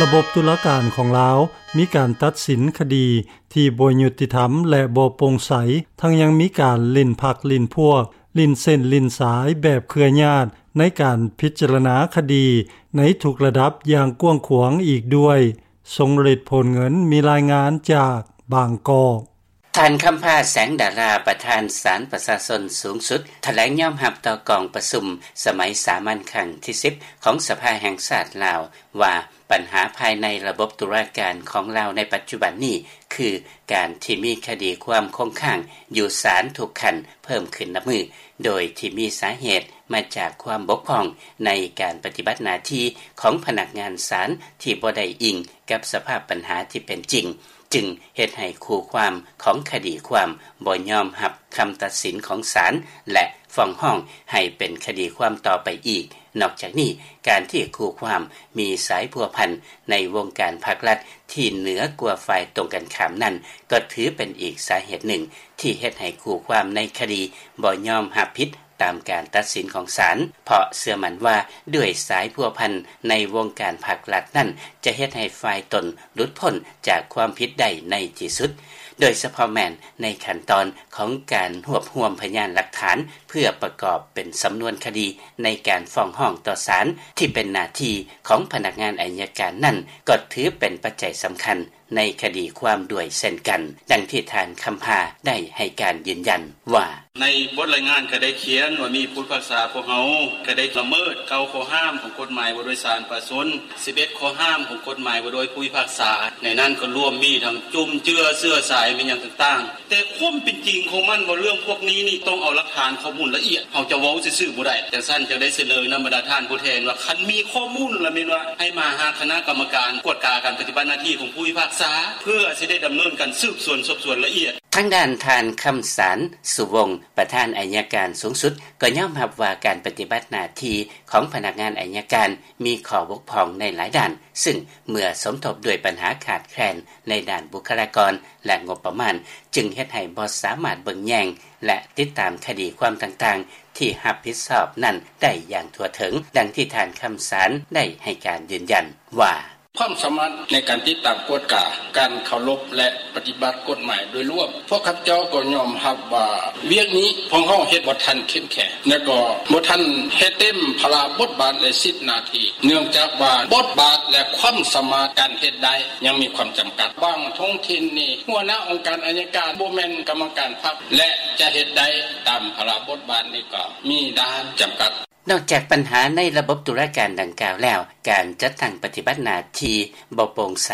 ລະບົບຕຸລາການຂອງລາວ ມີການຕັດສິນຄະດີທີ່ບໍ່ຍຸຕິທຳ ແລະ ບໍ່ໂປ່ງໃສ, ທັງຍັງມີການຫຼິ້ນພັກຫຼິ້ນພວກ, ຫຼິ້ນເສັ້ນຫຼິ້ນສາຍແບບເຄືອຍາດ ໃນການພິຈາລະນາຄະດີໃນທຸກລະດັບຢ່າງກວ້າງຂວາງອີກດ້ວຍ. ຊົງເລັດ ໂພນເງິນ ມີລາຍງານຈາກບາງກອກ. ທ່ານ ຄຳພາ ແສງດາລາ ປະທານສານປະຊາຊົນສູງສຸດ ຖະແຫຼງຍອມຮັບຕໍ່ກອງປະຊຸມສະໄໝສາມັນຄັ້ງທີສິບ ຂອງສະພາແຫ່ງຊາດລາວ ວ່າບັນຫາພາຍໃນລະບົບຕຸລາການຂອງລາວໃນປັດຈຸບັນນີ້ ຄືການທີ່ມີຄະດີຄວາມຄົງຄ້າງຢູ່ສານທຸກຂັ້ນເພີ່ມຂຶ້ນນັບມື້ ໂດຍທີ່ມີສາເຫດມາຈາກຄວາມບົກຜ່ອງໃນການປະຕິບັດໜ້າທີ່ຂອງພະນັກງານສານທີ່ບໍ່ໄດ້ອີງກັບສະພາບບັນຫາທີ່ເປັນຈິງ. ຈຶ່ງເຮັດໃຫ້ຄູ່ຄວາມຂອງຄະດີຄວາມບໍ່ຍອມຮັບຄຳຕັດສິນຂອງສານ ແລະ ຟ້ອງຮ້ອງໃຫ້ເປັນຄະດີຄວາມຕໍ່ໄປອີກ. ນອກຈາກນີ້, ການທີ່ຄູ່ຄວາມມີສາຍພົວພັນໃນວົງການພັກລັດທີ່ເໜືອກວ່າຝ່າຍຕົງກັນຂ້າມນັ້ນ ກໍຖືເປັນອີກສາເຫດໜຶ່ງທີ່ເຮັດໃຫ້ຄູ່ຄວາມໃນຄະດີບໍ່ຍອມຮັບຜິດ ຕາມການຕັດສິນຂອງສານ, ເພາະເຊື່ອໝັ້ນວ່າດ້ວຍສາຍພົວພັນໃນວົງການພັກລັດນັ້ນ ຈະເຮັດໃຫ້ຝ່າຍຕົນຫຼຸດພົ້ນຈາກຄວາມຜິດໄດ້ໃນທີ່ສຸດ, ໂດຍສະເພາະແມ່ນໃນຂັ້ນຕອນຂອງການຮວບຮວມພະຍານຫຼັກຖານ ເພື່ອປະກອບເປັນສຳນວນຄະດີໃນການຟ້ອງຮ້ອງຕໍ່ສານ ທີ່ເປັນໜ້າທີ່ຂອງພະນັກງານໄອຍະການນັ້ນ ກໍຖືເປັນປັດໄຈສຳຄັນ ໃນຄະດີຄວາມດ້ວຍເຊັ່ນກັນ, ດັ່ງທີ່ທ່ານ ຄຳພາ ໄດ້ໃຫ້ການຢືນຢັນວ່າ: ໃນບົດລາຍງານກໍໄດ້ຂຽນວ່າມີຜູ້ພິພາກສາພວກເຮົາກໍໄດ້ລະເມີດເກົ້າຂໍ້ຫ້າມຂອງກົດໝາຍວ່າດ້ວຍສານປະຊາຊົນ, ສິບເອັດຂໍ້ຫ້າມຂອງກົດໝາຍວ່າດ້ວຍຜູ້ພິພາກສາ, ໃນນັ້ນກໍລວມມີທັງຈຸ້ມເຈືອເຊື້ອສາຍ ແມ່ນຫຍັງຕ່າງໆ. ແຕ່ຄວາມເປັນຈິງຂອງມັນວ່າເລື່ອງພວກນີ້ນີ້ຕ້ອງເອົາຫຼັກຖານຂໍ້ມູນລະອຽດ, ເຮົາຈະເວົ້າຊື່ໆບໍ່ໄດ້. ຈັ່ງຊັ້ນຈຶ່ງໄດ້ສະເໜີນຳບັນດາທ່ານຜູ້ແທນວ່າ ຄັນມີຂໍ້ມູນລະແມ່ນວ່າໃຫ້ມາຫາຄະນະກຳມະການກວດກາການປະຕິບັດໜ້າທີ່ຂອງຜູ້ພິພາກສາ ເພື່ອຊິໄດ້ດຳເນີນການສືບສວນສອບສວນລະອຽດ. ທາງດ້ານທ່ານ ຄຳສານ ສຸວົງ ປະທານໄອຍະການສູງສຸດ ກໍຍອມຮັບວ່າການປະຕິບັດໜ້າທີ່ຂອງພະນັກງານໄອຍະການມີຂໍ້ບົກຜ່ອງໃນຫຼາຍດ້ານ, ຊຶ່ງເມື່ອສົມທົບດ້ວຍບັນຫາຂາດແຄລນໃນດ້ານບຸກຄະລາກອນ ແລະ ງົບປະມານ ຈຶ່ງເຮັດໃຫ້ບໍ່ສາມາດເບິ່ງແຍງ ແລະ ຕິດຕາມຄະດີຄວາມຕ່າງໆທີ່ຮັບຜິດຊອບນັ້ນໄດ້ຢ່າງທົ່ວເຖິງ, ດັ່ງທີ່ທ່ານ ຄຳສານ ໄດ້ໃຫ້ການຢືນຢັນວ່າ: ຄວາມສາມາດໃນການຕິດຕາມກວດກາການເຄົາລົບ ແລະ ປະຕິບັດກົດໝາຍໂດຍລວມ, ພວກຂ້າພະເຈົ້າກໍຍອມຮັບວ່າວຽກນີ້ພວກເຮົາເຮັດບໍ່ທັນເຂັ້ມແຂງ ແລະ ກໍບໍ່ທັນເຮັດເຕັມພາລະບົດບາດ ແລະ ສິດໜ້າທີ່ ເນື່ອງຈາກວ່າບົດບາດ ແລະ ຄວາມສາມາດການເຮັດໄດ້ຍັງມີຄວາມຈຳກັດ. ບາງທ້ອງຖິ່ນນີ້ ຫົວໜ້າອົງການໄອຍະການບໍ່ແມ່ນກຳມະການພັກ ແລະ ຈະເຮັດໄດ້ຕາມພາລະບົດບາດນີ້ກໍມີດ້ານຈຳກັດ. ນອກຈາກບັນຫາໃນລະບົບຕຸລາການດັ່ງກ່າວແລ້ວ, ການຈັດຕັ້ງປະຕິບັດໜ້າທີ່ບໍ່ໂປ່ງໃສ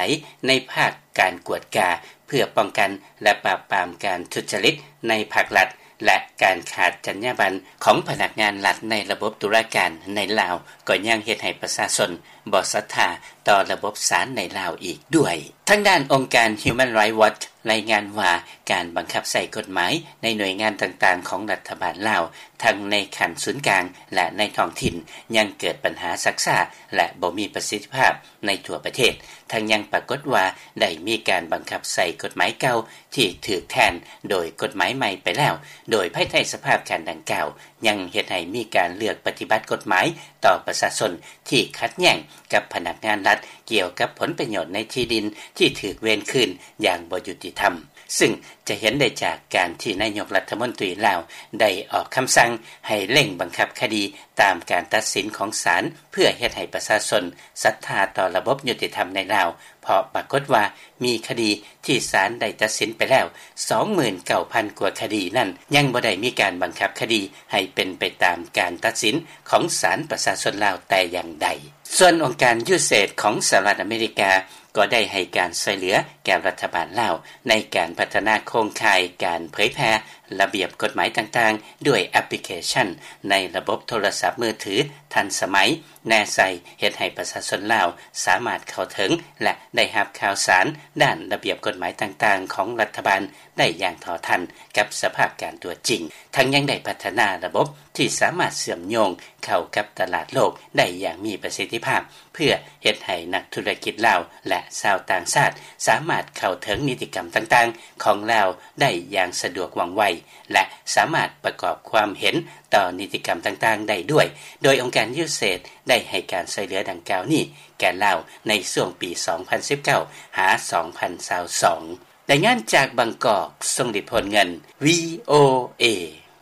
ໃນພາກການກວດກາ ເພື່ອປ້ອງກັນ ແລະ ປາບປາມການທຸດຈະລິດໃນພາກລັດ ແລະ ການຂາດຈັນຍາບັນຂອງພະນັກງານລັດໃນລະບົບຕຸລາການໃນລາວ ກໍຍັງເຮັດໃຫ້ປະຊາຊົນບໍ່ສັດທາຕໍ່ລະບົບສານໃນລາວອີກດ້ວຍ. ທາງດ້ານອົງການ Human Rights Watch ລາຍງານວ່າ ການບັງຄັບໃຊ້ກົດໝາຍໃນໜ່ວຍງານຕ່າງໆຂອງລັດຖະບານລາວ ທັງໃນຂັ້ນສູນກາງ ແລະ ໃນທ້ອງຖິ່ນ ຍັງເກີດບັນຫາຊັກຊ້າ ແລະ ບໍ່ມີປະສິດທິພາບໃນທົ່ວປະເທດ, ທັງຍັງປາກົດວ່າໄດ້ມີການບັງຄັບໃຊ້ກົດໝາຍເກົ່າທີ່ຖືກແທນໂດຍກົດໝາຍໃໝ່ໄປແລ້ວ, ໂດຍພາຍໃຕ້ສະພາບການດັ່ງກ່າວ ຍັງເຮັດໃຫ້ມີການເລືອກປະຕິບັດກົດໝາຍຕໍ່ປະຊາຊົນທີ່ຂັດແຍ້ງກັບພະນັກງານລັດ ກ່ຽວກັບຜົນປະໂຫຍດໃນທີ່ດິນທີ່ຖືກເວນຄືນຢ່າງບໍ່ຍຸຕິທຳ. ຊຶ່ງຈະເຫັນໄດ້ຈາກການທີ່ນາຍົກລັດຖະມົນຕີລາວໄດ້ອອກຄຳສັ່ງໃຫ້ເລັ່ງບັງຄັບຄະດີຕາມການຕັດສິນຂອງສານ ເພື່ອເຮັດໃຫ້ປະຊາຊົນສັດທາຕໍ່ລະບົບຍຸຕິທຳໃນລາວ, ເພາະປາກົດວ່າມີຄະດີທີ່ສານໄດ້ຕັດສິນໄປແລ້ວ ສອງໝື່ນເກົ້າພັນກວ່າຄະດີນັ້ນ ຍັງບໍ່ໄດ້ມີການບັງຄັບຄະດີໃຫ້ເປັນໄປຕາມການຕັດສິນຂອງສານປະຊາຊົນລາວແຕ່ຢ່າງໃດ. ສ່ວນອົງການ USAID ຂອງສະຫະລັດອາເມລິກາ ກໍໄດ້ໃຫ້ການຊ່ວຍເຫຼືອແກ່ລັດຖະບານລາວ ໃນການພັດທະນາໂຄງຂ່າຍການເຜີຍແຜ່ລະບຽບກົດໝາຍຕ່າງໆ ດ້ວຍແອັບພລິເຄຊັນໃນລະບົບໂທລະສັບມືຖືທັນສະໄໝ ແນໃສ່ເຮັດໃຫ້ປະຊາຊົນລາວສາມາດເຂົ້າເຖິງ ແລະ ໄດ້ຮັບຂ່າວສານດ້ານລະບຽບກົດໝາຍຕ່າງໆຂອງລັດຖະບານໄດ້ຢ່າງເທົ່າທັນກັບສະພາບການຕົວຈິງ, ທັງຍັງໄດ້ພັດທະນາລະບົບ ທີ່ສາມາດເຊື່ອມໂຍງເຂົ້າກັບຕະຫຼາດໂລກໄດ້ຢ່າງມີປະສິດທິພາບ ເພື່ອເຮັດໃຫ້ນັກທຸລະກິດລາວ ແລະ ຊາວຕ່າງຊາດ ສາມາດເຂົ້າເຖິງນິຕິກຳຕ່າງໆຂອງລາວໄດ້ຢ່າງສະດວກວ່ອງໄວ ແລະ ສາມາດປະກອບຄວາມເຫັນຕໍ່ນິຕິກຳຕ່າງໆໄດ້ດ້ວຍ, ໂດຍອົງການ USAID ໄດ້ໃຫ້ການຊ່ວຍເຫຼືອດັ່ງກ່າວນີ້ແກ່ລາວໃນຊ່ວງປີ ສອງພັນສິບເກົ້າ ຫາ ສອງພັນຊາວສອງ. ລາຍງານຈາກບາງກອກ, ຊົງລິດ ໂພນເງິນ VOA.